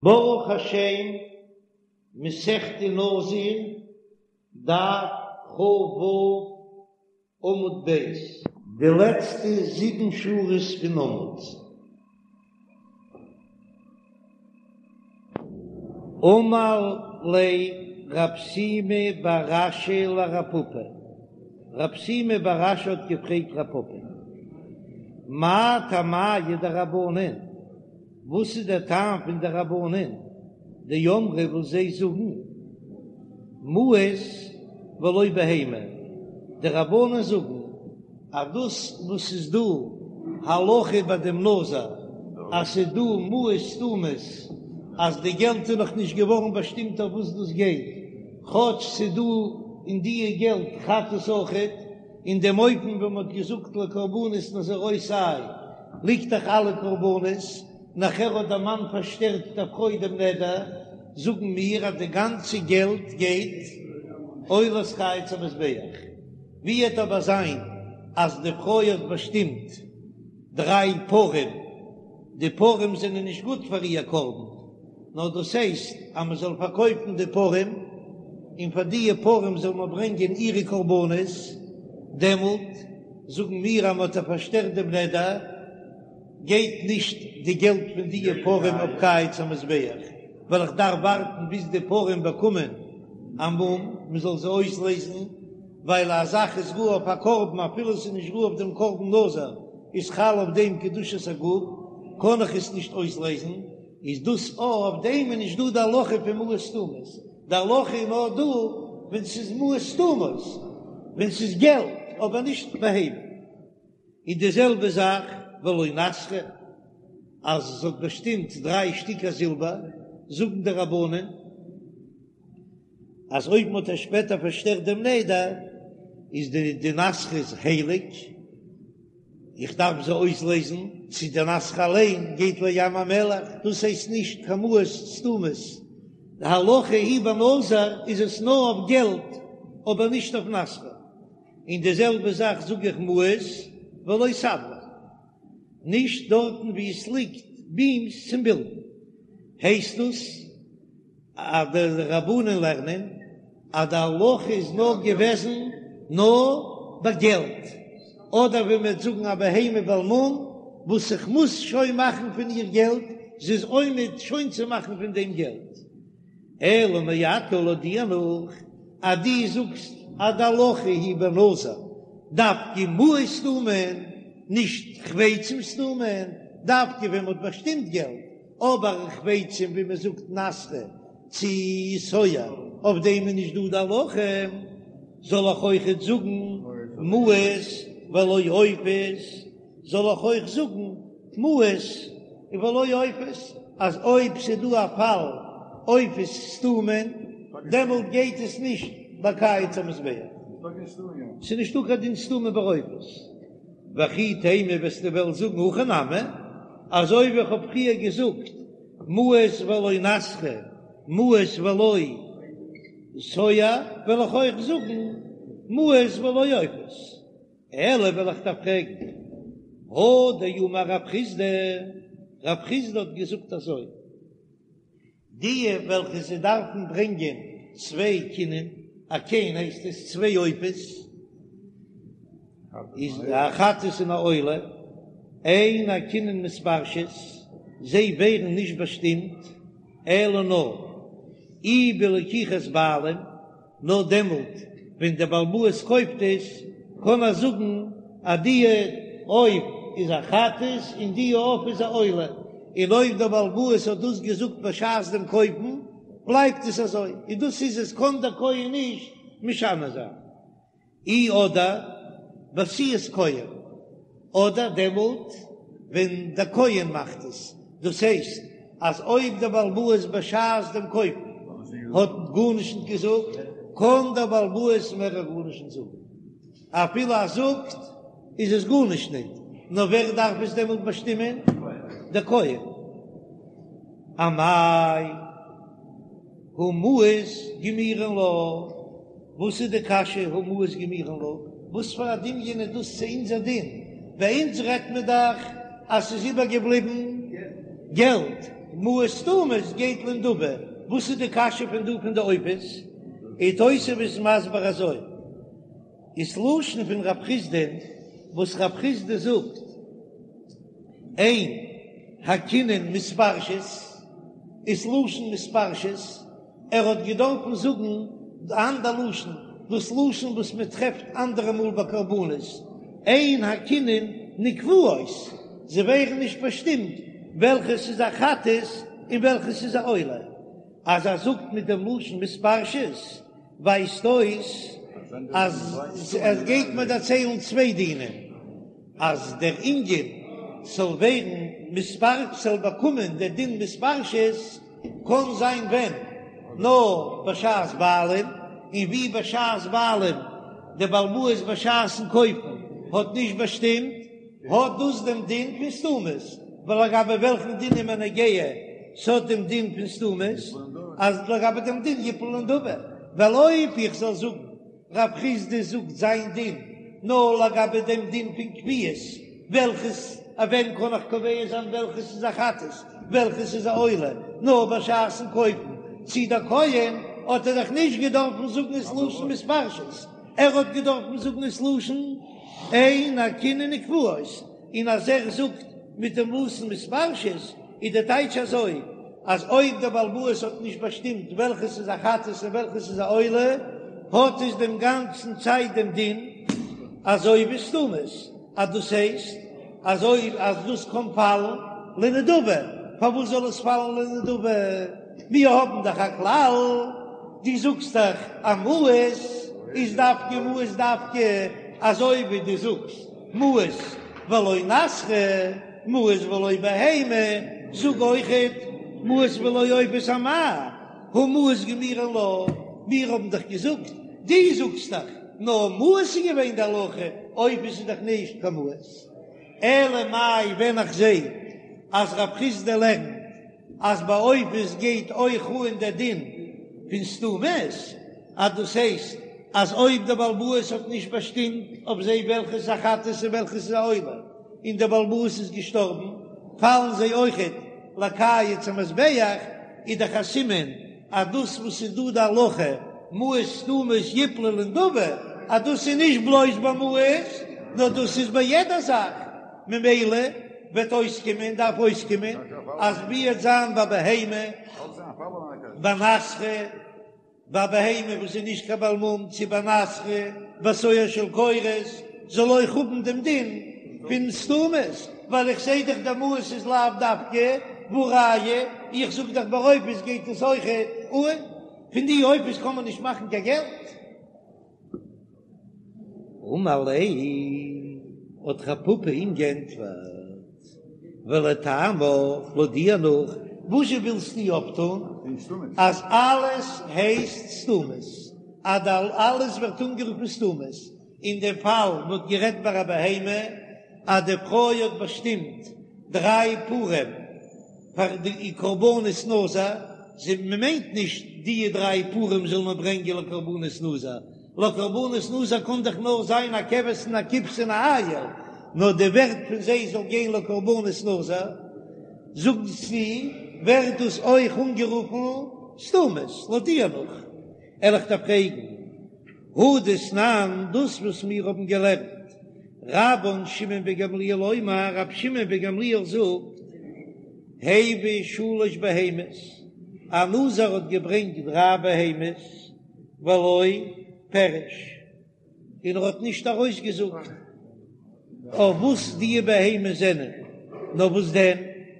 ברוך השם, מסכת נזיר, דף כ"ו, עמוד ב'. די לעצטע זיבן שורות פון עמוד. אמר ליה רב שימי בר אשי לרב פפא, רב שימי בר אשי האט געפרעגט רב פפא, מאי טעמייהו דרבנן? וואס איז דער טעם פון די רבנן דאמרי וואס זיי זאגן מעות ולא בהמה, די רבנן זאגן אז דאס וואס איז דא הלכה ביי דעם נזיר אז ס'איז דא מעות סתומות אז די געלט איז נאך נישט געווארן באשטימט אויף וואס דאס גייט, כאטש ס'איז דא אין דיע געלט חטאת אויכעט. אין דעם אופן ווען מ'האט געזאגט לקרבנות נזירותי ליגט דאך אלע קרבנות, נאכער האט דער מאן פארשטערט דער פרוי דעם נדר, זאגן מיר אז די גאנצע געלט גייט עולת קיץ המזבח. ווי וועט אבער זיין אז די פרוי האט באשטימט דריי פרים, די פרים זענען נישט גוט פאר איר קרבן, נאר דאס הייסט אז מען זאל פארקויפן די פרים, און פאר דיע פרים זאל מען ברענגען אירע קרבנות, דעמאלט זאגן מיר אז מען האט איר פארשטערט דעם נדר, גייט נישט די געלט פון דיע פרים אויף קיץ המזבח, ווייל איך דארף ווארטן ביז די פרים באקומען א מום, מען זאל זיי אויסלעזן, ווייל א זאך איז ראוי אויף א קרבן אפילו עס איז נישט ראוי אויף דעם קרבן נזיר, איז חל אויף דעם קדושת הגוף, קען איך עס נישט אויסלעזן. איז דאס אויף דעם איז נישט דא די הלכה פון מעות סתומות, די הלכה איז נאר דא ווען ס'איז מעות סתומות, ווען ס'איז געלט אבער נישט בהמה. און די זעלבע זאך ולא נסכא, אז עס האט באשטימט דריי שטיקער זילבער, זאגן די רבנן אז אויב מ'האט איר שפעטער פארשטערט דעם נדר איז די די נסכא איז הייליג, איך דארף זיי אויסלעזן, צו די נסכא אליין גייט לים המלח, דאס הייסט נישט קיין מעות סתומות, די הלכה היא בנזיר איז עס נאר אויף געלט אבער נישט אויף נסכא, און די זעלבע זאך זאג איך מעות ולא סבלי, נישט דארטן ווי עס ליגט בימס צום בילדן, הייסט דאס אז די רבנן לערנען אז די הלכה איז נאר געוועזן נאר ביי געלט, אדער ווען מ'וועט זאגן א בהמה בעל מום וואס איך מוז שוין מאכן פון איר געלט, זי איז עומד שוין צו מאכן פון דעם געלט. אלא מעתה לויט דיר נאך אז דו זאגסט אז די הלכה היא בנזיר דווקא מעות סתומין, נישט חפצים סתומין, דווקא ווען מ'האט באשטימט געלט, אבער חפצים ווי מען זאגט נסכא צו סואה אויף דעם איז נישט דא די הלכה, זאל איך אויכעט זאגן מעות ולא עופות, זאל איך אויך זאגן מעות ולא עופות, אז אויב ס'איז דא א פאל עופות סתומין דעמאלט גייט עס נישט בקיץ המזבח, ס'איז נישטא קיין דין סתומין ביי עופות. וכי תימא וועסטו וועלן זאגן הכי נמי, אזוי ווי איך האב פריער געזאגט מעות ולא נסכא מעות ולא סואה, וועל איך אויך זאגן מעות ולא עופות. אלא וועל איך דיר פרעגן, הא דאמר רב חסדא, רב חסדא האט געזאגט אזוי, די וועלכע זיי דארפן ברענגען צוויי כינים, א כן הייסט עס צוויי עופות, איז א חטאת און א עולה, אין הכינין מתפרשות, זיי ווערן נישט באשטימט, אלא נאר אי בלקיחת בעלים, נאר דעמאלט ווען דער בעל הבית קויפט עס, קען ער זאגן אז די עוף איז א חטאת און די עוף איז א עולה, און אויב דער בעל הבית האט דאס געזאגט בשעת דעם קויפן, בלייבט עס אזוי, און דאס איז עס, קען דער כהן נישט משנה זיין. אי אדער בעשיית כהן, אדער דעמאלט ווען דער כהן מאכט עס, דאס הייסט אז אויב דער בעל הבית בשעת דעם קויפן האט גארנישט נישט געזאגט, קען דער בעל הבית מער גארנישט נישט זאגן, אפילו ער זאגט איז עס גארנישט ניט, נאר ווער דארף עס דעמאלט באשטימען? דער כהן. אמאי הא מעות גמירין לה? וואס איז די קשיא הא מעות גמירין לה? וואס פאר א דמיון איז דאס צו אונזער דין? ביי אונז רעדט מען דאך אז ס'איז איבערגעבליבן געלט. מעות סתומות גייט לנדבה, וואס איז די קשיא פון דא פון די עופות? און תוספות איז מסביר אזוי, איז לשון פון רב חסדא וואס רב חסדא זאגט אין הקינין מתפרשות איז לשון מתפרשות, ער האט געדארפן זאגן די אנדער לשון, דאס לשון וואס מען טרעפט אנדערע מאל ביי קרבנות, אין הקינין נקבעות, זיי ווערן נישט באשטימט וועלכעס איז א חטאת און וועלכעס איז א עולה. אז ער זאגט מיט דעם לשון מתפרשות ווייזט אויס אז ער גייט מיר דערציילן צוויי דינים, אז דער ענין זאל ווערן מתפרש, זאל באקומען דער דין מתפרשות, קען זיין ווען נאר בשעת בעלים, און ווי בשעת בעלים דער בעל הבית בשעת'ן קויפן האט נישט באשטימט, האט דאס דעם דין פון סתומות, ווייל לגבי וועלכן דין איז מיר נוגע ס'האט דעם דין פון סתומות, אז לגבי דעם דין יפלו לנדבה, ווייל אויב איך זאל זאגן רב חסדא זאגט זיין דין נאר לגבי דעם דין פון קביעות, וועלכעס א ווען קען איך קובע זיין וועלכעס איז א חטאת וועלכעס איז א עולה, נאר בשעת'ן קויפן צו דער כהן האט ער דאך נישט געדארפן זאגן ס'לשון מתפרשות, ער האט געדארפן זאגן ס'לשון אין הקינין נקבעות, און אז ער זאגט מיט דעם לשון מתפרשות איז די טייטש אזוי, אז אויב דער בעל הבית האט נישט באשטימט וועלכעס איז א חטאת און וועלכעס איז א עולה, האט עס דעם גאנצן צייט דעם דין אזוי ווי סתומות, אז דאס הייסט אזוי אז דאס קען פאלן לנדבה, פארוואס זאל עס פאלן לנדבה? מיר האבן דאך א כלל, דו זאגסט דאך אז מעות איז דווקא מעות דווקא אזוי ווי דו זאגסט מעות ולא נסכא. מעות ולא בהמה, זאג אויכעט מעות ולא עופות אמאי, הא מעות גמירי לה, מיר האבן דאך געזאגט, דו זאגסט דאך, נאר מעות איז געווען די הלכה, עופות איז דאך נישט קיין מעות. אלא מאי ווען איך זע אז רב חסדא לערנט אז ביי עופות גייט אויך אן דער דין פון סתומות, אז דאס הייסט אז אויב דער בעל הבית האט נישט באשטימט אויף זיי וועלכעס איז א חטאת און וועלכעס איז א עולה, און דער בעל הבית איז געשטארבן, פאלן זיי אויכעט לקיץ המזבח, איז דאך א סימן אז דאס וואס איז דא די הלכה מעות סתומות יפלו לנדבה, אז דאס איז נישט בלויז ביי מעות, נאר דאס איז ביי יעדע זאך, ממילא וועט אויסקומען, דארף אויסקומען, אז ווי וועט זיין ביי בהמה, ביי נסכא. ביי בהמה וואס איז נישט קיין בעל מום צו ביי נסכא ביי סואר של קורות זאל אויך האבן דעם דין פון סתומות, ווייל איך זעה דאך די מעות איז לאו דווקא, והא ראיה איך זאג דאך ביי עופות גייט עס אויך אן, פון די עופות קען מען נישט מאכן קיין געלט. אמר ליה, האט רב פפא אים גענטפערט, ולטעמיך, לויט דיר נאך, וואזשע ווילסטו אויפטון אז אלעס הייסט סתומות, אז אלעס ווערט אנגערופן סתומות, אין דעם פאל מ'האט גערעדט ביי א בהמה אז די פרוי האט באשטימט דריי פרים פאר די קרבנות נזיר, זי מ'מיינט נישט די דריי פרים זאל מען ברענגען לקרבנות נזיר, לקרבנות נזיר קען דאך נאר זיין א כבש און א כבשה און א איל, נאר די ווערט פון זיי זאל גיין לקרבנות נזיר, זאגסטו ווערט דאס אויך אנגערופן סתומות, לויט דיר נאך, וועל איך דיר פרעגן, הא דתנן, דאס וואס מיר האבן געלערנט, רבן שמעון בן גמליאל אומר, רבי שמעון בן גמליאל זאגט, הביא שלש בהמות, א נזיר האט געברענגט דריי בהמות, ולא פירש, און ער האט נישט ארויסגעזאגט אויף וואס די בהמות זענען, נאר וואס דען,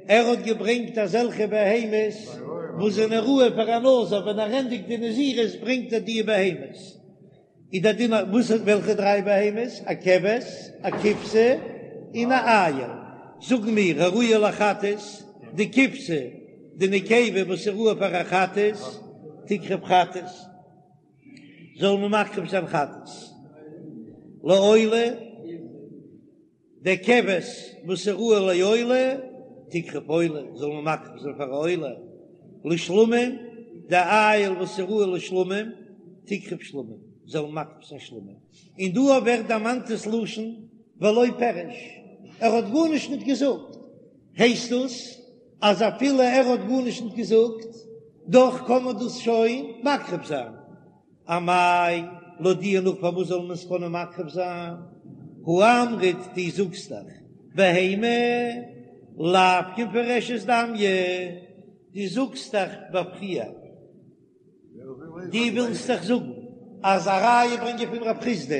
ער האט געברענגט אזעלכע בהמות וואס זענען ראוי פאר א נזיר, ווען ער ענדיגט די נזירות ברענגט ער די בהמות, איז דער דין וואס וועלכע דריי בהמות, א כבש, א כבשה, און א איל, זאגן מיר הראויה לחטאת, די כבשה, די נקבה וואס איז ראוי פאר א חטאת, תקרב חטאת, זאל מען מקריב זיין חטאת, לעולה, די כבש וואס איז ראוי לעולה, תקרב עולה, זאל מען מקריב זיין פאר א עולה, לשלמים, די איל וואס איז ראוי לשלמים, תקרב שלמים, זאל מען מקריב זיין שלמים. און דא ווערט דערמאנט דאס לשון ולא פירש, ער האט גארנישט ניט געזאגט, הייסט דאס. אז אפילו ער האט גארנישט נישט געזאגט, דאך קען מען דאס שוין מקריב זיין. אמאי, לויט דיר נאך פארוואס זאל מען עס קענען מקריב זיין? הא אמרת, דו זאגסט דאך בהמה לאו כמפורשת דמיא, דו זאגסט דאך בפריעה. דו ווילסט דאך זאגן אז א ראיה ברענגען פון רב חסדא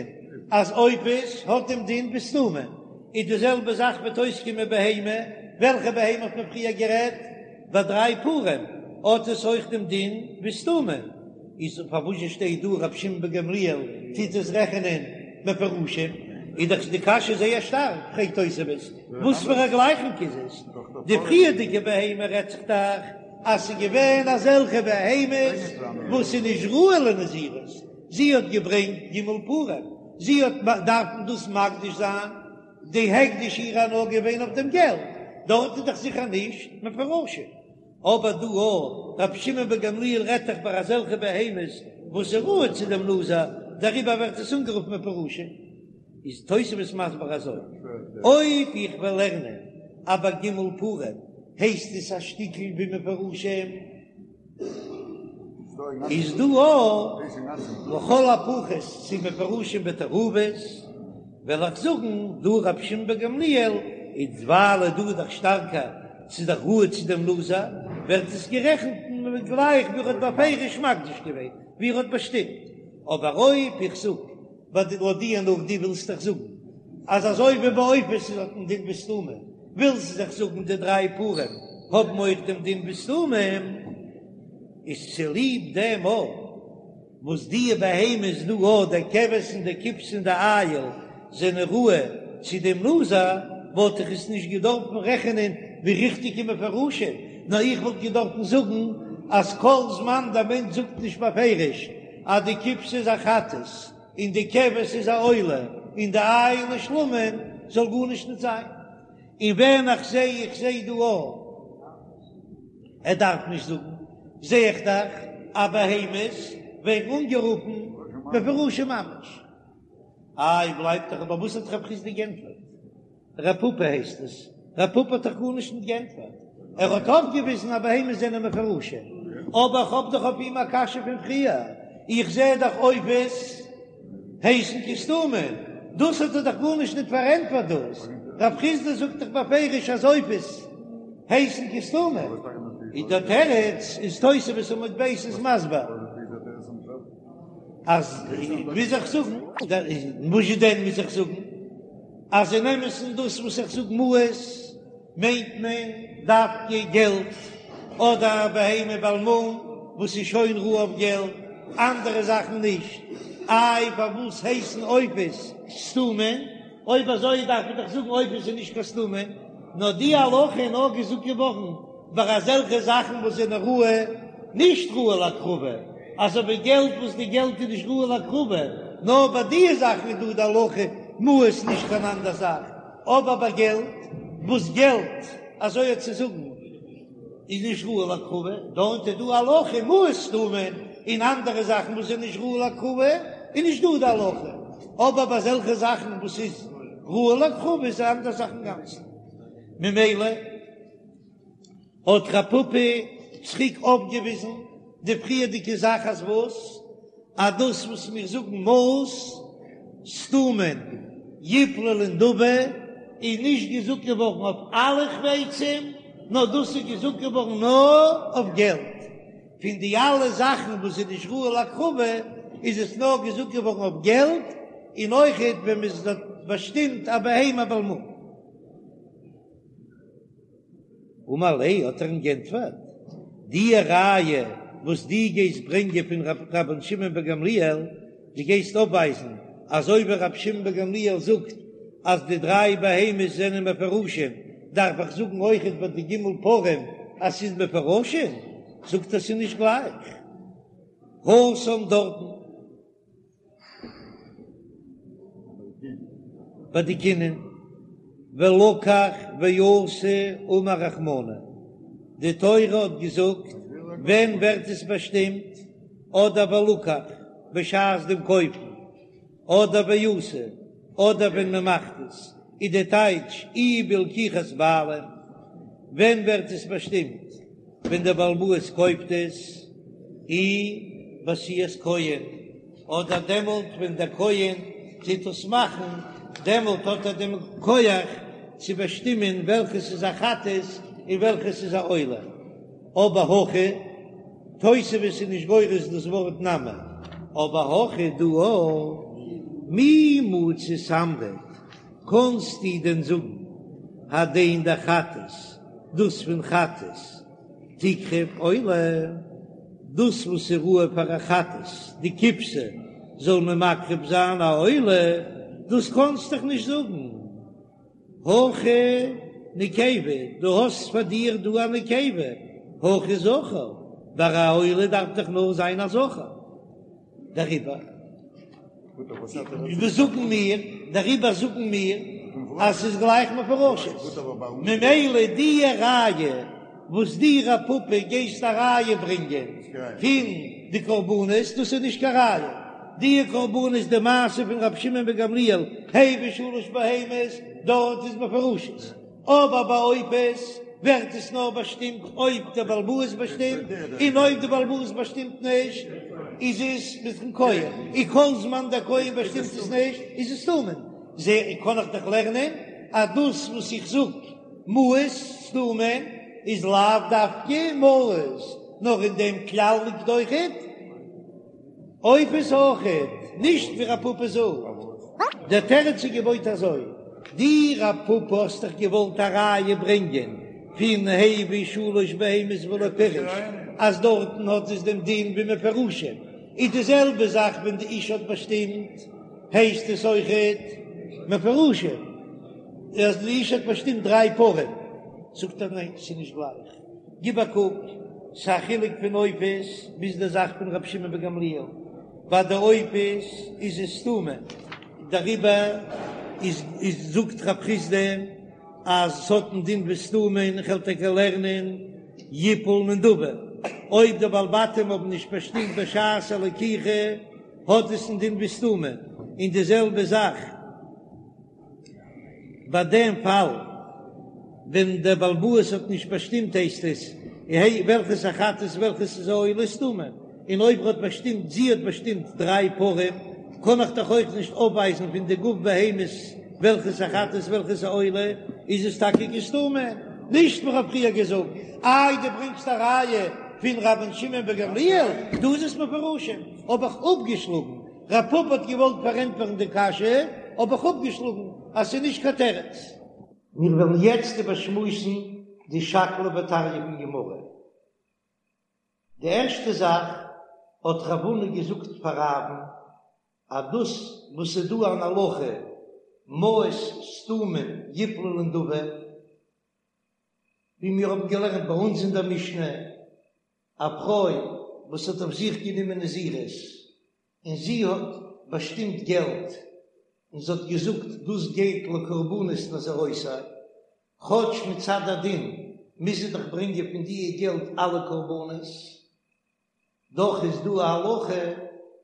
אז עופות האט דעם דין ווי סתומים, איז די זעלבע זאך וועט אויסקומען בהמה, וועלכע בהמה האט מען פריער גערעדט? ביי דריי פרים האט עס אויך דעם דין ווי סתומים, איז פארוואס שטייט דא רבי שמעון בן גמליאל טוט עס רעכענען מפורשים? איז דאך די קשיא זייער שטארק, פרעגט תוספות, וואס פאר א גלייכונג איז עס? די פריערדיגע בהמה רעדט זיך דאך אז ס'איז געווען אזעלכע בהמות וואס איז נישט ראוי לנזירות, זי האט געברענגט ג' פרים, זי האט דארפן דאס מקדיש זיין, די הקדש אירע נאר געווען אויף דעם געלט, דארט איז דאך זיכער נישט מפורשים, אבער דא אויך, רבי שמעון בן גמליאל רעדט דאך ביי אזעלכע בהמות וואס איז ראוי צו דעם נזיר, דעריבער ווערט עס אנגערופן מפורשים. איז תוספות מסביר אזוי, אויב איך וועל לערנען אז ביי ג' פרים הייסט עס א שטיקל ווי מפורשים, איז דא אויך לכל הפחות צו מפורשים בתערובות, וועל איך זאגן דא רבי שמעון בן גמליאל איז ווייל דא איז דאך שטארקער ס'איז דאך ראוי צו דעם נזיר, ווערט עס גערעכנט גלייך ווי ער האט בפירוש מקדיש געווען, ווי ער האט באשטימט, אבער אויב איך זאג לויט דיר נאך דו ווילסט דאך זאגן אז אזוי ווי ביי עופות איז האט מען דין ווי סתומים, ווילסט דאך זאגן די דריי פרים האבן אויך דעם דין ווי סתומים, איז צוליב דעם אויך וואס די בהמות דא אויך די כבש און די כבשה און די איל זענען ראוי צו דעם נזיר, וואלט איך עס נישט געדארפן רעכענען ווי ריכטיגע מפורשים, נאר איך וואלט געדארפן זאגן אז כל זמן דער מענטש זאגט נישט בפירוש אז די כבשה איז א חטאת און די כבש איז א עולה און די איל איז שלמים זאל גארנישט נישט זיין, און ווען איך זע איך זע דא א ער דארף נישט זאגן זע איך דאך אז בהמות ווערן אנגערופן מפורשים ממש. איי בלייבט דאך אבער וואס האט רב חסדא גענטפערט? ר' פפא הייסט עס, ר' פפא האט דאך גארנישט נישט גענטפערט, ער האט אויפגעוויזן אז בהמות זענען מפורשים, אבער איך האב דאך אויף אים א קשיא פון פריער, איך זע דאך עופות הייסן כסתומין, דאס האט ער דאך גארנישט נישט פארענטפערט דאס, רב חסדא זאגט דאך בפירוש אז עופות הייסן כסתומין, איז דער תירוץ איז תוספות עמוד ב' איז מסביר. אז מוז איך זאגן, וואס דען מוז איך זאגן? אז אין אמת'ן דאס וואס איך זאג מעות מיינט מען דווקא געלט, אדער א בהמה בעל מום וואס איז שוין ראוי אויף געלט, אנדערע זאכן נישט. איי פארוואס הייסן עופות סתומין? אויב אזוי דארף מען דאך זאגן עופות איז נישט קיין סתומין, נאר די הלכה איז נאר געזאגט געווארן ביי אזעלכע זאכן וואס זענען ראוי, נישט ראוי להקרבה, אזוי ווי געלט וואס די געלט איז נישט ראוי להקרבה, נאר ביי די זאכן איז דא די הלכה מעות נישט קיין אנדער זאך, אבער ביי געלט וואס געלט אזוי האט צו זאגן איז נישט ראוי להקרבה, דארט איז דא הלכה מעות סתומין, און אנדערע זאכן וואס זענען נישט ראוי להקרבה איז נישט דא די הלכה, אבער ביי אזעלכע זאכן וואס איז ראוי להקרבה איז א אנדער זאך אינגאנצן, ממילא. האט רב פפא צוריק אויפגעוויזן די פריערדיגע זאך אז וואס? אז דאס וואס מיר זאגן מעות סתומין יפלו לנדבה איז נישט געזאגט געווארן אויף אלע חפצים, נאר דאס איז געזאגט געווארן נאר אויף געלט. פון די אלע זאכן וואס איז נישט ראוי להקרבה איז עס נאר געזאגט געווארן אויף געלט, און אויכעט ווען מען האט באשטימט א בהמה בעל מום. אמר ליה האט ער אים גענטפערט, די ראיה וואס דו גייסט ברענגען פון רבן שמעון בן גמליאל, דו גייסט אויפווייזן אזוי ווי רבי שמעון בן גמליאל זאגט אז די דריי בהמות זענען מפורשים, דארף איך זאגן אויכעט ביי די ג' פרים אז ס'איז מפורשים? זאגט ער ס'איז נישט גלייך התם דארטן. ביי די קינין, ולקח ועשה אמר רחמנא, די תורה האט געזאגט ווען ווערט עס באשטימט, אדער ולקח בשעת דעם קויפן, אדער ועשה, אדער ווען מען מאכט עס, איז די טייטש אי בלקיחת בעלים. ווען ווערט עס באשטימט? ווען דער בעל הבית קויפט עס, אי בעשיית כהן, אדער דעמאלט ווען דער כהן טוט עס מאכן, דעמאלט האט ער דעם כח צו באשטימען וועלכעס איז א חטאת און וועלכעס איז א עולה. אבער הכא, תוספות איז נישט גורס דאס ווארט נמי, אבער הכא דא מי מצית אמרת, קאנסטו דען זאגן הדין דחטאת, דאס פון חטאת תקרב עולה, דאס וואס איז ראוי פאר א חטאת, די כבשה, זאל מען מקריב זיין א עולה, דאס קאנסט דאך נישט זאגן. הכא נקבה, דו האסט פאר דיר דא א נקבה, הכא זכר, ביי א עולה דארף דאך נאר זיין א זכר. דעריבער וואס זאגן מיר? דעריבער זאגן מיר אז ס'איז גלייך מפורשות, ממילא די ראיה וואס דו רב פפא גייסט א ראיה ברענגען פון די קרבנות, דאס איז נישט קיין ראיה, די קרבנות די מעשה פון רבי שמעון בן גמליאל הביא שלש בהמות דארט איז מפורשות. אבער ביי עופות ווערט עס נאר באשטימט אויב דער בעל הבית באשטימט, און אויב דער בעל הבית באשטימט נישט איז עס מיטן כהן, און כל זמן דער כהן באשטימט עס נישט איז עס סתומים. זע קען איך דאך לערנען אז דאס וואס איך זאג מעות סתומים איז לאו דווקא מעות, נאר אין דעם כלל ליגט אויכעט. עופות אויכעט, נישט ווי רב פפא זאגט. דער תירוץ איז געבויט אזוי, דו רב פפא האסט דאך געוואלט א ראיה ברענגען פון הביא שלש בהמות ולא פירש אז דארטן האט עס דעם דין ווי מפורשים, איז די זעלבע זאך ווען די אשה האט באשטימט הייסט עס אויכעט מפורשים אז די אשה האט באשטימט דריי פרים, זאגט ער ניין ס'איז נישט גלייך. גיב א קוק, ס'א חילוק פון עופות ביז די זאך פון רבי שמעון בן גמליאל, ביי די עופות איז עס סתומים, דעריבער איז איז זאגט רב חסדא אז ס'האט א דין ווי סתומים, איך וועל טאקע לערנען יפול לנדבה, אויב די בעלי בתים האבן נישט באשטימט בשעת הלקיחה האט עס א דין ווי סתומים, און די זעלבע זאך. ביי דעם פאל ווען דער בעל הבית האט נישט באשטימט הייסט עס וועלכעס א חטאת וועלכעס איז א עולה סתומים, און אויב ער האט באשטימט זי האט באשטימט דריי פרים קען איך דאך אויך נישט אויפווייזן פון די גוף בהמות וועלכעס א חטאת וועלכעס א עולה, איז עס טאקע כסתומים, נישט ווי כ'האב פריער געזאגט, איי דו ברענגסט א ראיה פון רבן שמעון בן גמליאל, דא איז עס מפורשים, האב איך אפגעשלאגן. רב פפא האט געוואלט פארענטפערן די קשיא, האב איך אפגעשלאגן אז ס'איז נישט קיין תירוץ. מיר וועלן יעצט איבערשמועסן די שקלא וטריא פון גמרא. די ערשטע זאך האט רב הונא געזאגט פאר רב'ן אז דאס וואס ס'איז דא אן הלכה מעות סתומים יפלו לנדבה, ווי מיר האבן געלערנט ביי אונז אין דער משנה, א פרוי וואס האט אויף זיך גענומען נזירות און זי האט באשטימט געלט און זי האט געזאגט דאס גייט לקרבנות נזירותי, כאטש מצד הדין מוז זי דאך ברענגען פון דיע געלט אלע קרבנות, דאך איז דא א הלכה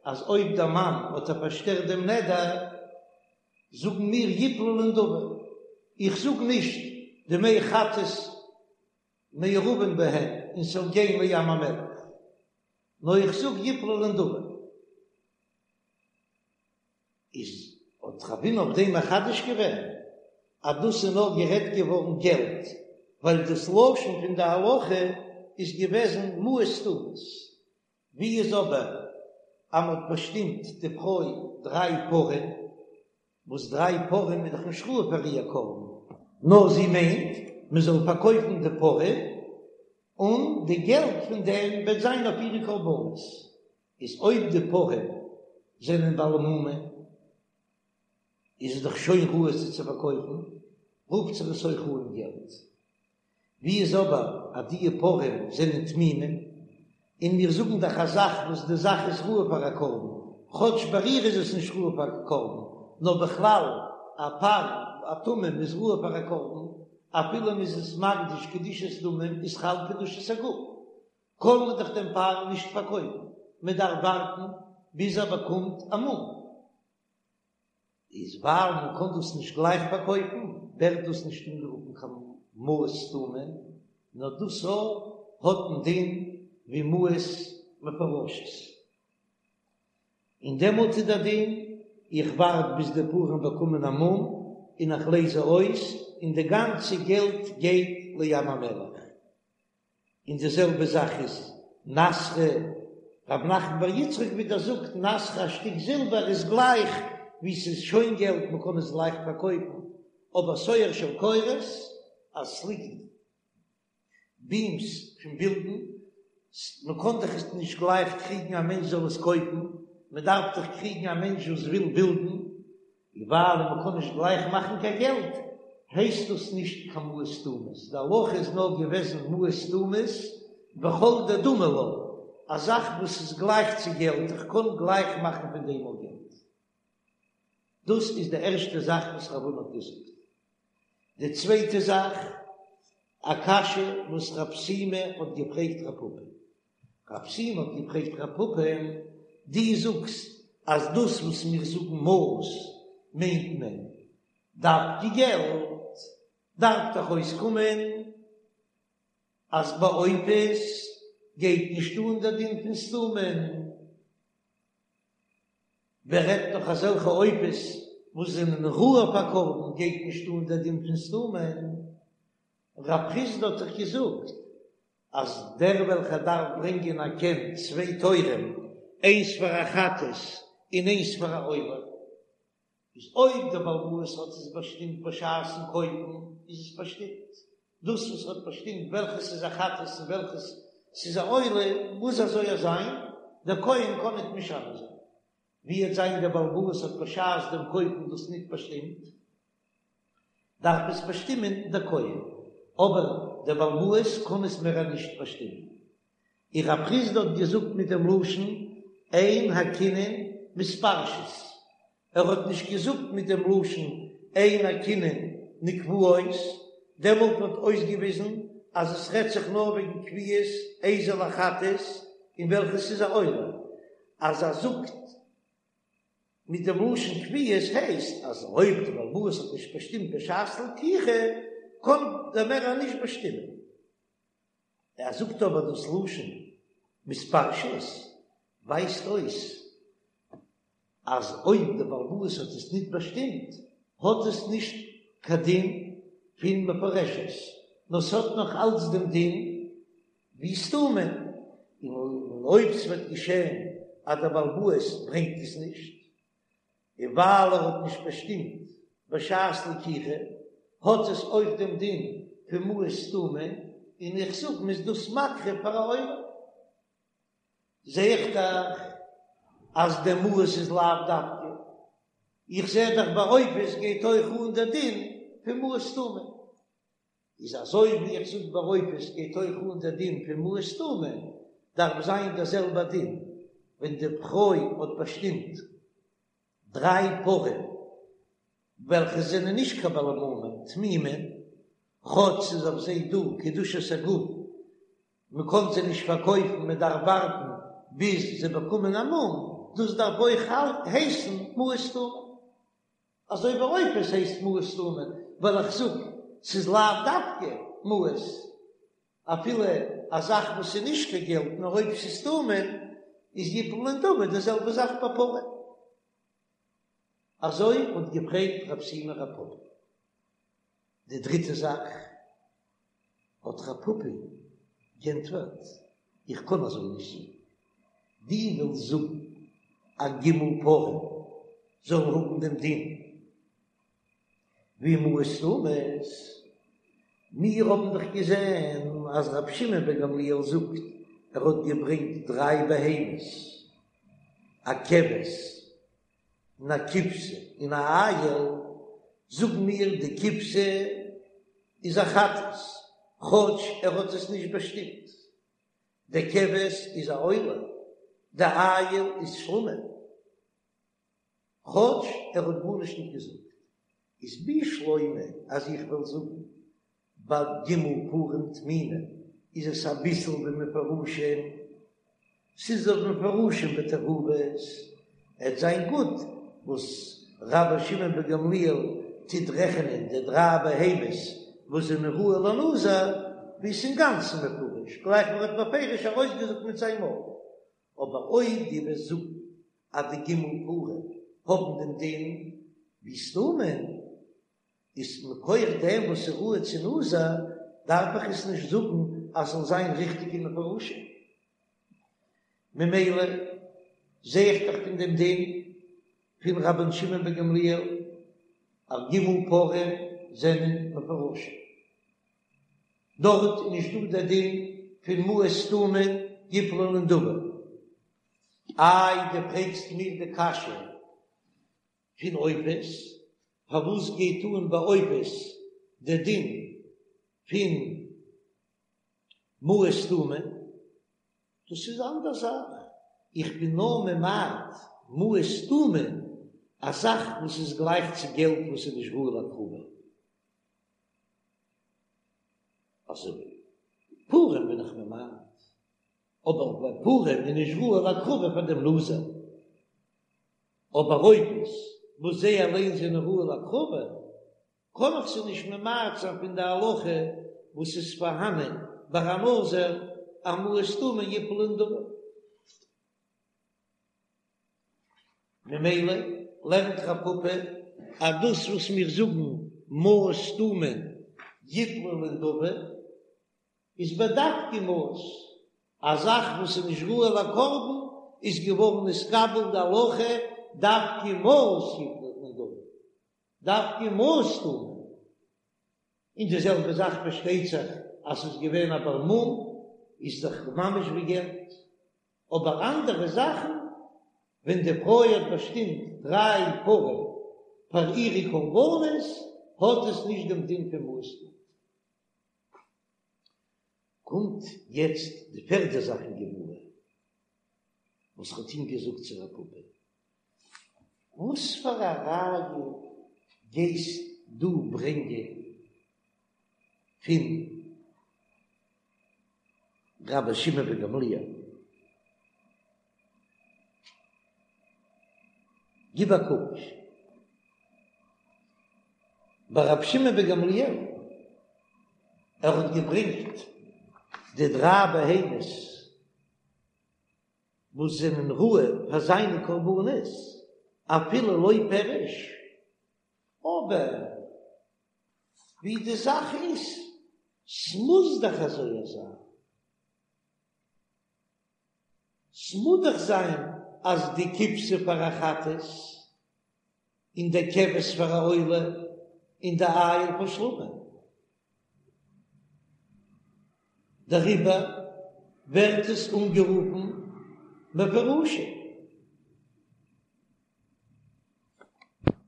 אז אויב דער מאן האט איר פארשטערט דעם נדר זאגן מיר יפלו לנדבה, איך זאג נישט דמי חטאת מעורבין בהן און ס'זאל גיין לים המלח, נאר איך זאג יפלו לנדבה. איז האט רב הונא אויף דעם מחדש געווען אז דאס איז נאר גערעדט געווארן געלט, ווייל דאס לשון פון די הלכה איז געוועזן מעות סתומות, ווי איז אבער אז מ'האט באשטימט די פרוי דריי פרים, וואס דריי פרים איז דאך נישט ראוי פאר איר קרבן, נאר זי מיינט מען זאל פארקויפן די פרים און די געלט פון דעם וועט זיין אויף אירע קרבנות, איז אויב די פרים זענען בעלי מומין איז עס דאך שוין ראוי זיי צו פארקויפן, רופט זיך עס אויך אן געלט. ווי איז אבער אז דיע פרים זענען תמימים, און מיר זאגן דאך א זאך וואס די זאך איז ראוי פאר א קרבן, כאטש ביי איר איז עס נישט ראוי פאר א קרבן, נאר בכלל א פר א תמים איז ראוי פאר א קרבן, אפילו מען איז עס מקדיש קדושת דמים איז חל קדושת הגוף, קען מען דאך דעם פר נישט פארקויפן, מען דארף ווארטן ביז ער באקומט א מום. איז ווייל מען קען דאס נישט גלייך פארקויפן, ווערט דאס נישט אנגערופן קיין מעות סתומים. נאר דאס האט דעם דין ווי מעות מפורשות. און דעמאלט איז דער דין, איך ווארט ביז די פרים באקומען א מום און איך לייז זיי אויס, און די גאנצע געלט גייט לים המלח. און די זעלבע זאך איז נסכא, רב נחמן בר יצחק ווידער זאגט נסכא א שטיק זילבער איז גלייך ווי ס'איז שוין געלט מ'קען עס גלייך פארקויפן, אבער סואר של קורות אז ס'ליגט בימס פון בילדן, מ'קען דאך עס נישט גלייך קריגן א מענטש זאל עס קויפן, מ'דארף דאך קריגן א מענטש וואס וויל בילדן, און ווייל מ'קען נישט גלייך מאכן קיין געלט, הייסט דאס נישט קיין מעות סתומות, די הלכה איז נאר געוועזן מעות סתומות וכל דדמי לה, א זאך וואס איז גלייך צו געלט, איך קען גלייך מאכן פון דעם אויך געלט. דאס איז די ערשטע זאך וואס רב הונא האט געזאגט. די צווייטע זאך, א קשיא וואס רב שימי האט געפרעגט רב פפא. רב שימי האט געפרעגט רב פפא, דו זאגסט אז דאס וואס מיר זאגן מעות מיינט מען דווקא געלט, דארף דאך אויסקומען אז ביי עופות גייט נישט אן דער דין פון סתומים. ווער רעדט נאך אזעלכע עופות וואס זענען ראוי פאר קרבן גייט נישט אן דער דין פון סתומים. רב חסדא האט דאך געזאגט אז דער וועלכער דארף ברענגען א קן צוויי תורים איינס פאר א חטאת און איינס פאר א עולה, איז אויב דער בעל הבית האט עס באשטימט בשעת'ן קויפן איז עס באשטימט, דאס וואס האט באשטימט וועלכעס איז א חטאת און וועלכעס ס'איז א עולה מוז אזוי זיין, דער כהן קען ניט משנה זיין. ווי וועט זיין דער בעל הבית האט בשעת דעם קויפן דאס ניט באשטימט, דארף עס באשטימען דער כהן, אבער דער בעל הבית קען עס מער נישט באשטימען. און רב חסדא האט געזאגט מיט דעם לשון אין הקינין מתפרשות, ער האט נישט געזאגט מיט דעם לשון אין הקינין נקבעות, דעמאלט וואלט אויסגעוויזן אז עס רעדט זיך נאר וועגן קביעות איזה לחטאת און וועלכעס איז א עולה, אז ער זאגט מיט דעם לשון קביעות הייסט אז אויב דער בעל הבית האט נישט באשטימט בשעת לקיחה קען דער מערער נישט באשטימען. ער זאגט אבער דאס לשון מתפרשות ווייזט אויס אז אויב דער בעל הבית האט עס ניט באשטימט האט עס נישט קיין דין פון מפורשת נאר ס'האט נאך אלץ דעם דין ווי סתומים, און אויב ס'וועט געשען אז דער בעל הבית ברענגט עס נישט, און ווייל ער האט נישט באשטימט בשעת לקיחה, האט עס אויך דעם דין פון מעות סתומים, און איך זאג מ'איז דאס מקריב פאר א עולה. זע איך דאך אז די מעות איז לאו דווקא, איך זע דאך ביי עופות גייט אויך אן דער דין פון מעות סתומים. איז אזוי ווי איך זאג ביי עופות גייט אויך אן דער דין פון מעות סתומים, דארף זיין דער זעלבער דין ווען די פרוי האט באשטימט דריי פרים וועלכע זענען נישט קיין בעלי מומים תמימים, כאטש ס'איז אויף זיי דא קדושת הגוף, מען קען זיי נישט פארקויפן, מען דארף ווארטן ביז זיי באקומען א מום, דאס דארף אויך הייסן מעות סתומים. אזוי ווי עופות הייסט מעות סתומים, ווייל איך זאג ס'איז לאו דווקא מעות, אפילו א זאך וואס איז נישט קיין געלט נאר אויב ס'איז סתומים איז יפלו לנדבה, די זעלבע זאך ביי פרים. אזוי האט געפרעגט רב שימי רב פפא. די דריטע זאך האט רב פפא גענטפערט, איך קען אזוי נישט זאגן, דו ווילסט זאגן אז ג' פרים זאלן האבן דעם דין ווי מעות סתומות, מיר האבן דאך געזען אז רבי שמעון בן גמליאל זאגט ער האט געברענגט דריי בהמות, א כבש און א כבשה און א איל, זאגן מיר די כבשה איז א חטאת, כאטש ער האט עס נישט באשטימט, די כבש איז א עולה, די איל איז שלמים, כאטש ער האט גארנישט נישט געזאגט, איז בשלמא אז איך וועל זאגן ביי ג' פרים תמימים איז עס אביסל ווי מפורשים, ס'איז דאך מפורשים בתערובות, עט זיין גוט וואס רבן שמעון בן גמליאל טוט רעכענען די דריי בהמות וואס זענען ראוי לנזיר. ווי ס'איז אינגאנצן מפורש, גלייך ווי ער האט בפירוש ארויסגעזאגט מיט זיין מויל. אבער אויב דו וועסט זאגן אז די ג' פרים האבן דעם דין ווי סתומים, איז מכח דעם וואס איז ראוי צו נזיר, דארף איך עס נישט זאגן אז ס'זאל זיין ריכטיג און מפורשים. ממילא זע איך דאך פון דעם דין פון רבן שמעון בן גמליאל אז ג' פרים זענען מפורשים. דארט איז נישט דא דער דין פון מעות סתומים יפלו לנדבה. איי דו פרעגסט מיר די קשיא פון עופות, פארוואס גייט אן ביי עופות דער דין פון מעות סתומים? דאס איז אנדער זאך, איך בין נאר ממעט מעות סתומים, א זאך וואס איז גלייך צו געלט וואס איז נישט ראוי להקרבה. אזוי פרים בין איך ממעט, אבער ביי פרים איז נישט ראוי להקרבה פאר דעם נזיר, אבער עופות וואס זיי אליין זענען ראוי להקרבה, קען איך זיי נישט ממעט זיין פון די הלכה וואס איז פארהאנען ביי א נזיר אז מעות סתומים יפלו לנדבה. ממילא לערנט רב פפא אז דאס וואס מיר זאגן מעות סתומים יפלו לנדבה איז בדווקא מעות, א זאך וואס איז נישט ראוי לקרבן איז געווארן נתקבל די הלכה דווקא מעות יפלו לנדבה, דווקא מעות סתומים, און די זעלבע זאך פארשטייט זיך אז ס'איז געווען א בר מום איז דאך ממש ווי געלט. אבער אנדערע זאכן, ווען די פרוי האט באשטימט דריי פרים פאר אירע קרבנות, האט עס נישט דעם דין פון מעות סתומים. קומט יעצט די פערדע זאך אין גמרא, וואס האט אים געזאגט צו רב פפא, וואס פאר א ראיה גייסט דו ברענגען פון רבי שמעון בן גמליאל, גיב א קוק ביי רבי שמעון בן גמליאל, ער האט געברענגט די דריי בהמות וואס זענען ראוי פאר זיינע קרבנות, אפילו לא פירש, אבער ווי די זאך איז, ס'מוז דאך אזוי זיין, ס'מוז דאך זיין אז די כבשה פאר א חטאת, און די כבש פאר א עולה, און די איל פאר שלמים. דעריבער ווערט עס אנגערופן מפורשים.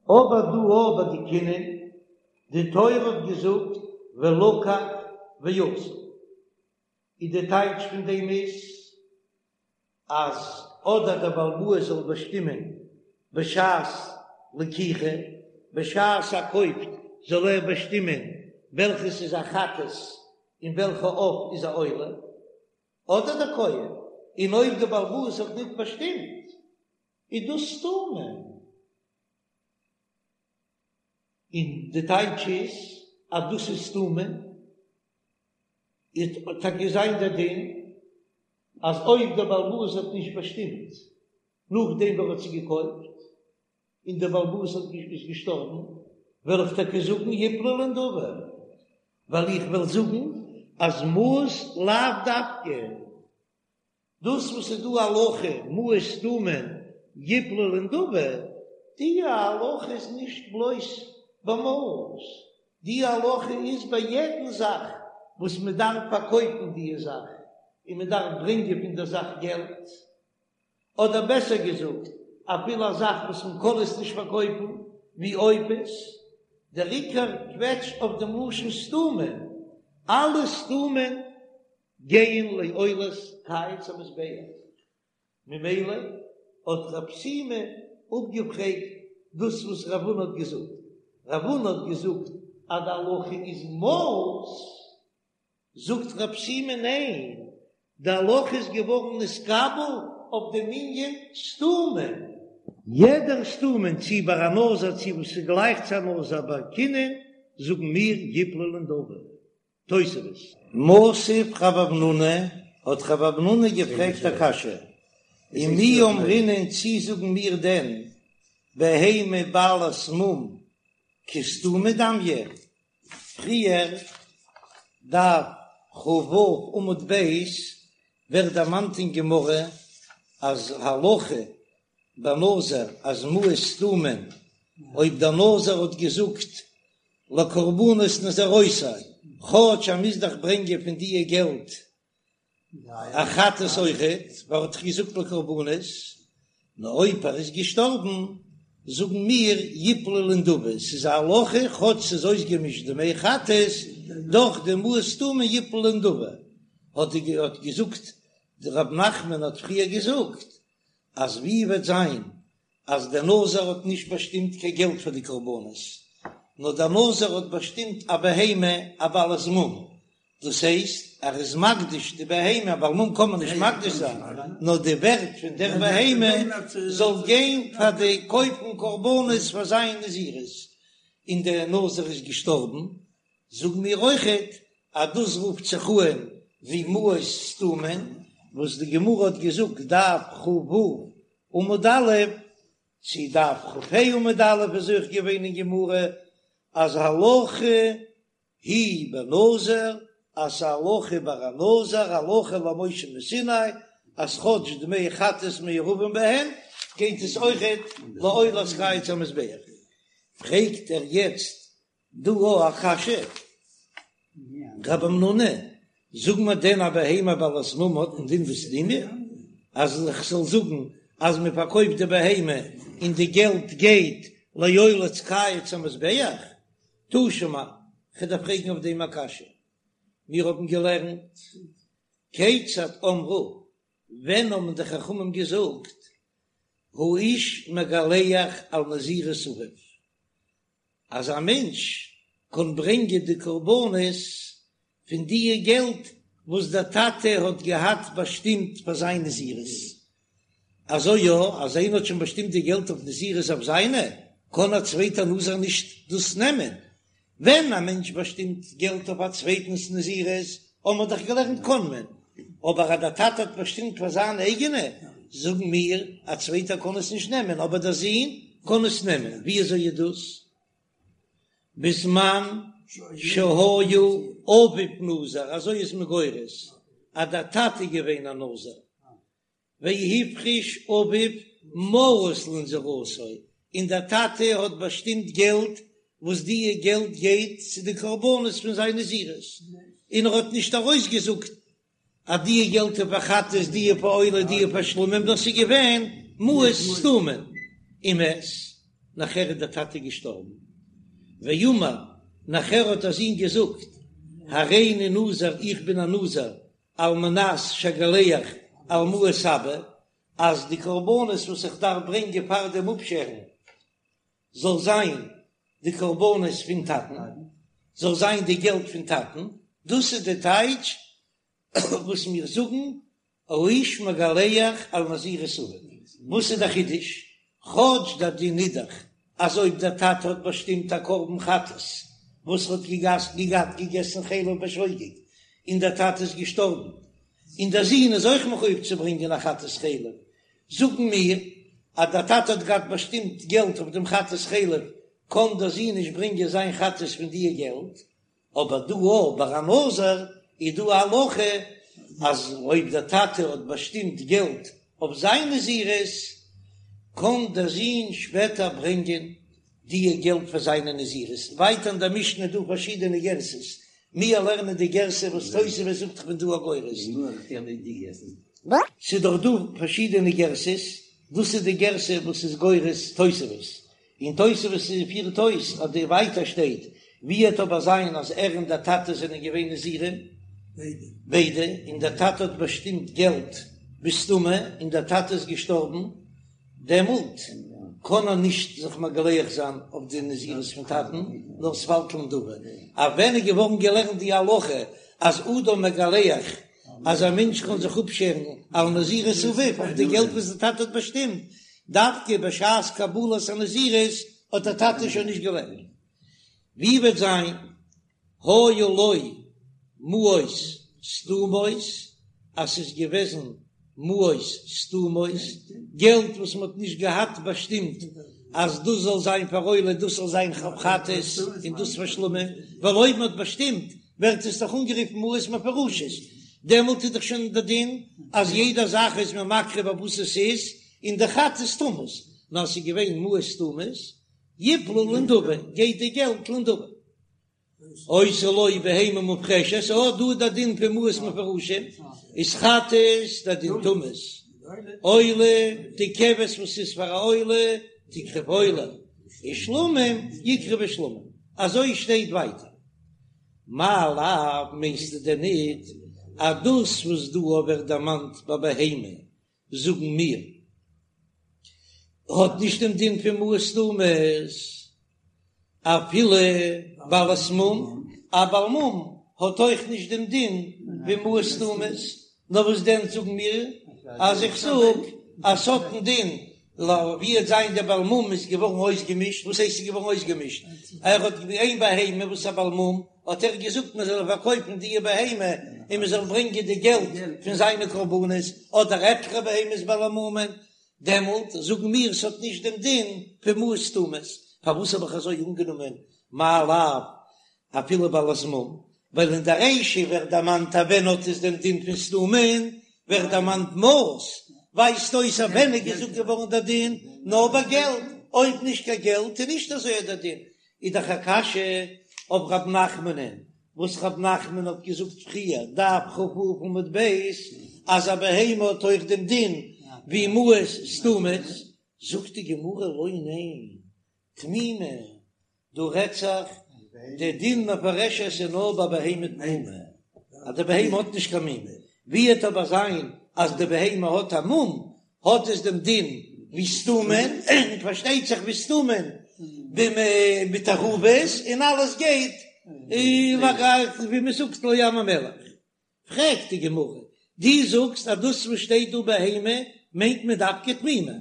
אבער דא אבער די קינין, די תורה האט געזאגט ולקח ועשה, איז די טייטש פון דעם איז אז אדער דער בעל הבית זאל באשטימען בשעת לקיחה, בשעת ער קויפט זאל ער באשטימען וועלכעס איז א חטאת און וועלכע עוף איז א עולה, אדער דער כהן, און אויב דער בעל הבית האט ניט באשטימט איז דאס סתומים. און די טייטש איז אז דאס איז סתומים, וועט טאקע זיין דער דין אז אויב דער בעל הבית האט נישט באשטימט נאכדעם ווי ער האט זי געקויפט, און דער בעל הבית האט איז געשטארבן, וועל איך טאקע זאגן יפלו לנדבה, ווייל איך וועל זאגן אז מעות לאו דווקא. דאס וואס איז דא הלכה מעות סתומים יפלו לנדבה, די הלכה איז נישט בלויז ביי מעות, די הלכה איז ביי יעדן זאך וואס מען דארף פארקויפן די זאך און מען דארף ברענגען פון דער זאך געלט, אדער בעסער געזאגט אפילו א זאך וואס מען קען עס נישט פארקויפן ווי עופות, דער עיקר קוועטש אויף דעם לשון סתומים, אלע סתומים גייען לעולת קיץ המזבח, ממילא האט רב שימי אפגעפרעגט דאס וואס רב הונא האט געזאגט, רב הונא האט געזאגט אז די הלכה איז מעות, זאגט רב שימי ניין, די הלכה איז געווארן נתקבל אויף דעם ענין סתומים. יעדער סתומים צי ביי א נזיר צי וואס איז גלייך צו א נזיר ביי קינין זאגן מיר יפלו לנדבה. תוספות. מתיב רב המנונא, האט רב המנונא געפרעגט א קשיא, ומי אמרינן צי זאגן מיר דען בהמה בעלת מום כסתומה דמיא? פריער, דף כ"ו עמוד ב', ווערט דערמאנט אין גמרא אז הלכה בנזיר אז מעות סתומים, אויב דער נזיר האט געזאגט לקרבנות נזירותי, כאטש ער מוז דאך ברענגען פון דיע געלט א חטאת אויכעט, ווייל ער האט דאך געזאגט לקרבנות, נאר אויב ער איז געשטארבן, זאגן מיר יפלו לנדבה, ס'איז א הלכה כאטש ס'איז אויסגעמישט דמי חטאת, דאך די מעות סתומים יפלו לנדבה, האט געזאגט רב נחמן האט פריער געזאגט אז ווי וועט זיין אז דער נזיר האט נישט באשטימט קיין געלט פאר די קרבנות, נאר דער נזיר האט באשטימט א בהמה א בעלת מום, דאס הייסט ער איז מקדיש די בהמה, א בעל מום קען מען נישט מקדיש זיין, נאר די ווערט פון דער בהמה זאל גיין פאר די קויפן קרבנות פאר זיין נזירות, און דער נזיר איז געשטארבן, זאגן מיר אויכעט אז דאס רופט זיך אן ווי מעות סתומים, וואס די גמרא האט געזאגט דף כ"ו עמוד א', צו דף כ"ה עמוד א' איז אויך געווען אין גמרא אז הלכה היא בנזיר, אז ס'איז א הלכה ביי א נזיר, הלכה למשה מסיני, אז כאטש דמי חטאת מעורבים בהן, גייט עס אויכעט לעולת קיץ המזבח. פרעגט ער יעצט דא א קשיא, רב המנונא, זאג מיר דען א בהמה בעלת מום האט א דין ווי סתומה? אז איך זאל זאגן אז מען פארקויפט די בהמה און די געלט גייט לעולת קיץ המזבח? תא שמע, כ'דארף פרעגן אויף דעם א קשיא. מיר האבן געלערנט, כיצד אמרו, ווען האבן די חכמים געזאגט, האיש מגלח על נזירות אביו, אז א מענטש קען ברענגען די קרבנות פון דיע געלט וואס דער טאטע האט געהאט באשטימט פאר זיין נזירות, אזוי יא, אז איינער האט שוין באשטימט די געלט אויף נזירות אויף זיינע, קען א צווייטער נזיר נישט דאס נעמען. ווען א מענטש באשטימט געלט אויף א צווייטנס נזירות, האבן מיר דאך געלערנט קען מען, אבער אז דער טאטע האט באשטימט פאר זיין אייגענע, זאגן מיר, א צווייטער קען עס נישט נעמען, אבער דער זון קען עס נעמען. ווי אזוי איז דאס? בזמן שהיה אביו נזיר, אזוי איז מען גורס, אז דער טאטע איז געווען א נזיר, והפריש אביו מעות לנזירותו, און דער טאטע האט באשטימט געלט וואס דיע געלט גייט צו די קרבנות פון זיין נזירות, און ער האט נישט ארויסגעזאגט אז דיע געלט איז פאר חטאת, דיע פאר עולה, דיע פאר שלמים, דאס איז געווען מעות סתומים, ומת, נאכער איז דער טאטע געשטארבן, ואמר, נאכער האט דער זון געזאגט, הריני נזיר, איך בין א נזיר, על מנת שאגלח על מעות אבא, אז די קרבנות וואס איך דארף ברענגען פאר דעם אפשערן זאל זיין די קרבנות פון טאטן, זאל זיין די געלט פון טאטן, דאס איז די טייטש וואס מיר זאגן האיש מגלח על נזירות אביו. וואס איז די חידוש? כאטש דער דין איז דאך אז אויב דער טאטע האט באשטימט א קרבן חטאת וואס האט געהאט געגעסן חלב בשוגג און דער טאטע איז געשטארבן און דער זון איז אויך מחויב צו ברענגען א חטאת חלב, זאגן מיר אז דער טאטע האט געהאט באשטימט געלט אויף דעם חטאת חלב קען דער זון נישט ברענגען זיין חטאת פון דיע געלט, אבער דא אויך ביי א נזיר איז דא א הלכה אז אויב דער טאטע האט באשטימט געלט אויף זיין נזירות קען דער זון שפעטער ברענגען דיע געלט פאר זיינע נזירות. ווייטער אין דער משנה איז דא פארשידענע גרסאות, מיר לערנען די גרסה וואס תוספות זאגט איך בין דא א גורס. ס'איז דאך דא פארשידענע גרסאות, דאס איז די גרסה וואס איז גורס תוספות, און תוספות פירט אויס אז די ווייטער שטייט ווי עט אבער זיין אז ער און דער טאטע זענען געווען נזירים ביידע און דער טאטע האט באשטימט געלט בסתמא און דער טאטע איז געשטארבן דעמאלט קען ער נישט זיך מגלח זיין אויף די נזירות פון טאטן נאר ס'פאלט לנדבה אויף ווען איז געווארן געלערנט די הלכה אז אדם מגלח אז א מענטש קען זיך אפשערן על נזירות אביו אויף די געלט וואס די טאטע האט באשטימט, דווקא בשעת קבלת הנזירות האט דער טאטע שוין נישט געלעבט. ווי וועט זיין היה לו? מעות סתומות, אז ס'איז געוועזן מעות סתומות, געלט וואס מ'האט נישט געהאט באשטימט אז דאס זאל זיין פאר עולה, דאס זאל זיין חטאת און דאס פאר שלמים, ווייל אויב מ'האט באשטימט ווערט עס דאך אנגערופן מעות מפורשות, דעמאלט איז דאך שוין די דין אז יעדע זאך איז מען מקריב אויף וואס עס איז, און די חטאת תמות, נאר ס'איז געווען מעות סתומות, יפלו לנדבה, גייט די געלט לנדבה. היתה לו בהמה מופרשת, אה, דא איז די דין פון מעות מפורשים, איז חטאת די דין תמות, עולה, די כבש וואס איז פאר א עולה, תקרב עולה, און שלמים יקרבו שלמים, אזוי שטייט ווייטער. מאי לאו מיינסטו דען ניט אז דאס וואס דא ווערט דערמאנט ביי בהמה זאגן מיר האט נישט דעם דין פון מעות סתומות אפילו בעלת מום, א בעל מום האט אויך נישט דעם דין ווי מעות סתומות, נאר וואס דען זאגן מיר אז איך זאג אז ס'האט דעם דין ווי עט זיין דער בעל מום איז געווארן אויסגעמישט, וואס הייסט איז געווארן אויסגעמישט? ער האט איין בהמה וואס א בעל מום האט ער געזאגט מען זאל פארקויפן די בהמה און מען זאל ברענגען די געלט פון זיינע קרבנות, אדער עטליכע בהמות בעלי מומין, דעמאלט זאגן מיר ס'האט נישט דעם דין פון מעות סתומות, פארוואס האב איך אזוי אנגענומען מאי לאו אפילו בעלת מום, ווייל אין די רישא ווערט דערמאנט אז ווען האט עס דעם דין פון סתומין, ווערט דערמאנט מעות, ווייזט אויס אז ווען איז געזאגט געווארן דער דין, נאר ביי געלט, אויב נישט קיין געלט איז נישט אזוי דער דין, איז דאך א קשיא אויף רב נחמנ'ן, וואס רב נחמן האט געזאגט פריער, דף כ"ו עמוד ב', אז א בהמה האט אויך דעם דין ווי מעות סתומות, זאגט די גמרא לא ניין, תמימה, דא רעדט זיך די דין מפורשת איז נאר ביי בהמה תמימה, אז די בהמה האט נישט קיין מום, ווי עט אבער זיין אז די בהמה האט א מום, האט עס דעם דין ווי סתומין, און פארשטייט זיך ווי סתומין מיט תערובות, און אלעס גייט ווי מען זאגט לים המלח. פרעגט די גמרא, דו זאגסט אז דאס וואס שטייט דא בהמה מיינט מען דווקא תמימה,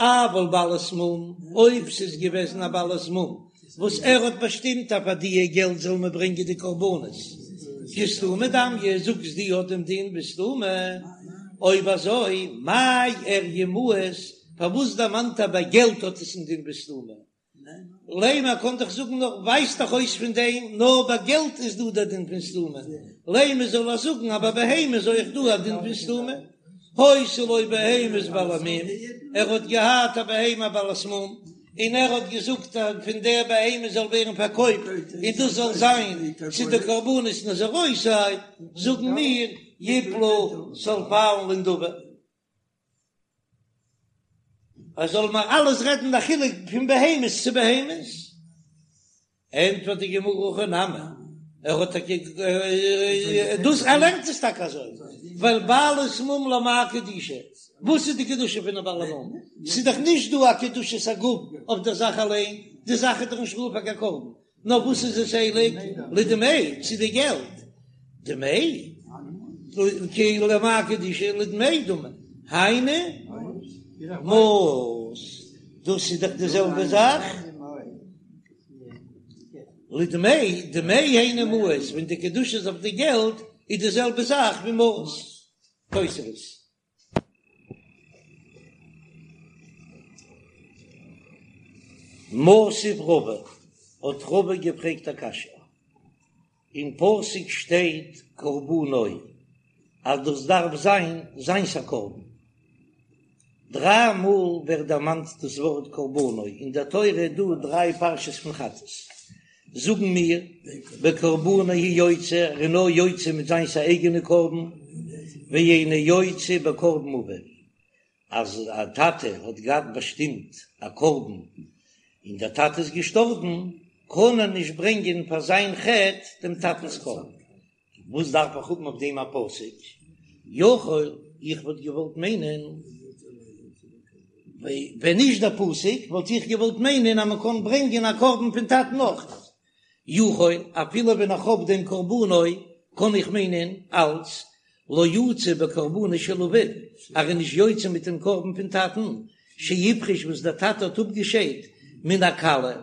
אבל בעלת מום, אויב ס'איז געוועזן א בעלת מום וואס ער האט באשטימט אז פאר דיע געלט זאל מען ברענגען די קרבנות, כסתומי דמיא, זאגסט דו האט דעם דין ווי סתומי, אויב אזוי מאי איריא מעות, פארוואס דערמאנט ער ביי געלט האט עס דעם דין ווי סתומי? לימא קען דאך זאגן נאר ווייזט דאך אויס פון דעם נאר ביי געלט איז דא דער דין פון סתומי, לימא זאל ער זאגן אז ביי בהמה איז אויך דא א דין פון סתומי, היתה לו בהמת בעלי מום, ער האט געהאט א בהמה בעלת מום, און ער האט געזאגט אז פון דער בהמה זאל ווערן פארקויפט און דאס זאל זיין צו די קרבנות נזירותי, זאגן מיר יפלו ס'זאל פאלן לנדבה. ער זאל מיר אלעס רעדן די חילוק פון בהמות צו בהמות, ענטפערט די גמרא הכי נמי, ער האט טאקע דאס ער לערנט עס טאקע אזוי, ווייל בעלת מום למאי קדושה, וואס איז די קדושה פון א בעל מום? ס'איז דאך נישט דא א קדושת הגוף אויף דער זאך אליין, די זאך איז דאך נישט ראוי פאר קיין קרבן, נאר וואס איז עס הייליג? לדמי, צו די געלט. דמי, כאילו למאי קדושה לדמי דמי, היינו מעות, דאס איז דאך די זעלבע זאך. לדמי, דמי היינו מעות, ווען די קדושה איז אויף די געלט, איז די זעלבע זאך ווי מעות. תוספות. מתיב רבא, האט רבא געפרעגט א קשיא, אין פסוק שטייט קרבנו אז דאס דארף זיין זיינס א קרבן, דריי מאל ווערט דערמאנט דאס ווארט קרבנו אין דער תורה איז דא דריי פרשות פון חטאת, זאגן מיר, בקרבנו הוא יוצא, ער איז נאר יוצא מיט זיינס א אייגענע קרבן, ואינו יוצא בקרבן אביו, אז א טאטע האט געהאט באשטימט א קרבן און דער טאטע איז געשטארבן, קען ער נישט ברענגען פאר זיין חטא דעם טאטנ'ס קרבן. וואס דארף איך האבן אויף דעם א פסוק? יכול, איך וואלט געוואלט מיינען, ווען נישט דער פסוק וואלט איך געוואלט מיינען אז מען קען ברענגען א קרבן פון טאטן אויך. יכול, אפילו ווען איך האב דעם קרבנו, קען איך מיינען אלץ לא יצא בקרבנו של אביו, ער איז נישט יוצא מיט דעם קרבן פון טאטן, שהפריש וואס דער טאטע האט אפגעשיידט מן הקלה,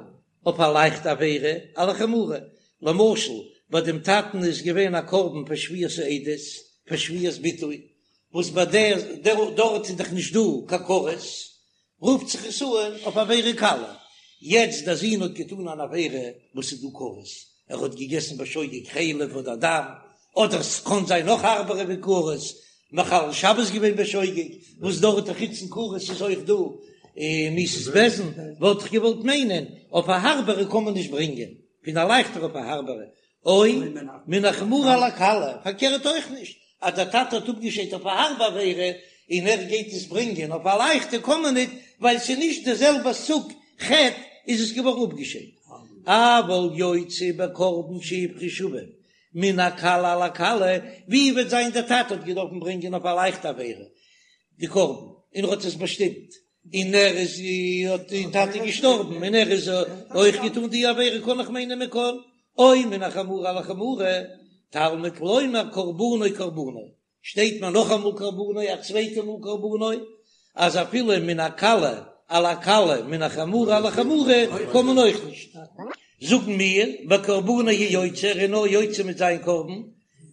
אויף א לייכטע עבירה על החמורה, למשל. ביי דעם טאטן איז געווען א קרבן פאר שבועת העדות, פאר שבועת ביטוי, וואס ביי דער דארט איז דאך נישט דא קיין כרת, רופט זיך עס אן אויף עבירה קלה, יעצט דער זון האט געטאן אן עבירה וואס איז דא כרת, ער האט געגעסן בשוגג חלב אדער דם, אדער ס'קען זיין נאך הארבערע ווי כרת, מחלל שבת געווען בשוגג, וואס דארט חוץ פון כרת איז אויך דא מיתת בית דין, וואלט איך געוואלט מיינען אויף א הארבערע קען מען נישט ברענגען, פון א לייכטערע אויף א הארבערע, או מן החמורה על הקלה, פארקערט אויך נישט, אז דער טאטע האט אפגעשיידט אויף א הארבע עבירה און ער גייט עס ברענגען אויף א לייכטע קען מען ניט, ווייל ס'איז נישט די זעלבע סוג חטא איז עס געווארן אפגעשיידט. אבל יוצא בקרבן שהפריש אביו מן הקלה על הקלה, ווי וועט זיין דער טאטע האט געדארפן ברענגען אויף א לייכטע עבירה די קרבן און ער האט עס באשטימט, און ער איז האט די טאטע געשטארבן און ער איז אויך געטאן די עבירה קען איך מיינען מען קען או מן החמורה על החמורה תלמוד לומר קרבנו קרבנו שטייט מיר נאכאמאל קרבנו א צווייטע מאל קרבנו אז אפילו מן הקלה על הקלה מן החמורה על החמורה קען מען אויך נישט זאגן מיר בקרבנו הוא יוצא ער איז נאר יוצא מיט זיין קרבן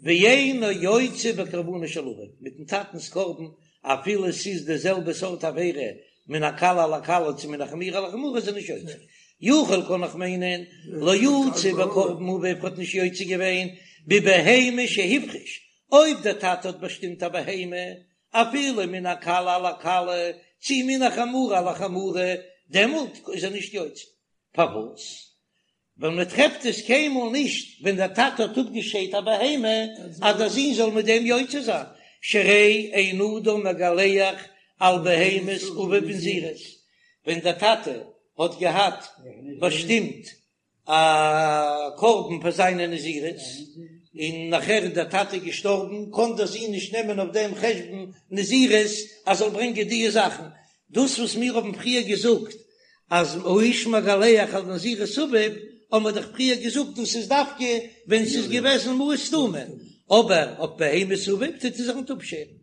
ואינו יוצא בקרבנו של אביו מיטן טאטנס קרבן אפילו ס'איז די זעלבע סארט עבירה מן הקלה על הקלה צו מן החמורה על החמורה איז ער נישט יוצא. יכול קען איך מיינען לא יצא בקרבן אביו האט נישט יוצא געווען בבהמה שהפריש, אויב דער טאטע האט באשטימט א בהמה אפילו מן הקלה על הקלה צו מן החמורה על החמורה דעמאלט איז ער נישט יוצא. פארוואס? ווייל מען טרעפט עס קיינמאל נישט ווען דער טאטע האט אפגעשיידט א בהמה אז דער זון זאל מיט דעם יוצא זיין, שהרי אין אדם מגלח על בהמת אביו בנזירות, ווען דער טאטע האט געהאט באשטימט א קרבן פאר זיינע נזירות, און נאכער איז דער טאטע געשטארבן, קען דער זון נישט נעמען אויף דעם חשבון נזירות אז זאל ברענגען די זאכן, דאס וואס מיר האבן פריער געזאגט אז האיש מגלח על נזירות אביו, האבן מיר דאך פריער געזאגט דאס איז דווקא ווען ס'איז געוועזן מעות סתומים, אבער אויף בהמת אביו טוט ער זיך ניט אפשערן.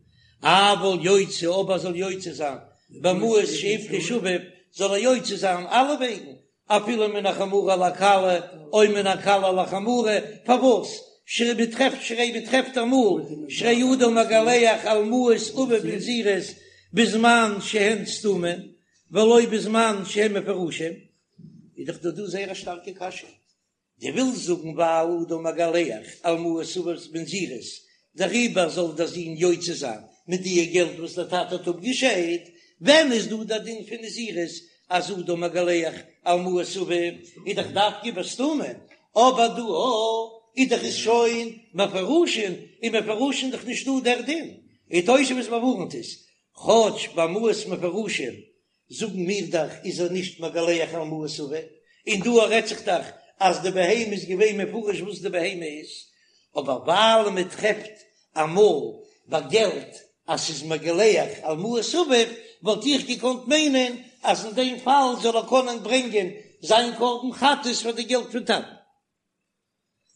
אבל יוצא אבער זאל יוצא זיין במעות שהפריש אביו, זאל ער יוצא זיין אלע וועגן, אפילו מן החמורה על הקלה או מן הקלה על החמורה, פארוואס? שהרי מ'טרעפט שהרי מ'טרעפט אמאל שהרי אדם מגלח על מעות אביו בנזירות בזמן שהן סתומים ולא בזמן שהן מפורשים, איז דאך דא דא זייער א שטארקע קשיא, דו ווילסט זאגן ווייל אדם מגלח על מעות אביו בנזירות, דעריבער זאל דער זון יוצא זיין מיט די געלט וואס דער טאטע האט אפגעשיידט, ווען איז דא דער דין פון נזירות אז אדם מגלח על מעות אביו איז דאך דווקא בסתומים, אבער דא איז דאך עס שוין מפורשין, און מפורשין איז דאך נישט דא דער דין, און תוספות באווארנט עס, כאטש ביי מעות מפורשין זאגן מיר דאך איז ער נישט מגלח על מעות אביו, און דא רעדט זיך דאך אז די בהמה איז געווען מפורש וואס די בהמה איז, אבער ווייל מען טרעפט אמאל ביי געלט אז ס'איז מגלח על מעות אביו, וואלט איך געקאנט מיינען אז אין דעם פאל זאל ער קענען ברענגען זיין קרבן חטאת פאר די געלט פון טאטן.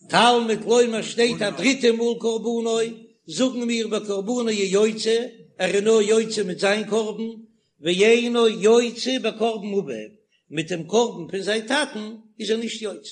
תלמוד לומר שטייט א דריטע מאל קרבנו, זאגן מיר בקרבנו הוא יוצא, ער איז נאר יוצא מיט זיין קרבן, ואינו יוצא בקרבן אביו, מיט דעם קרבן פון זיין טאטן איז ער נישט יוצא.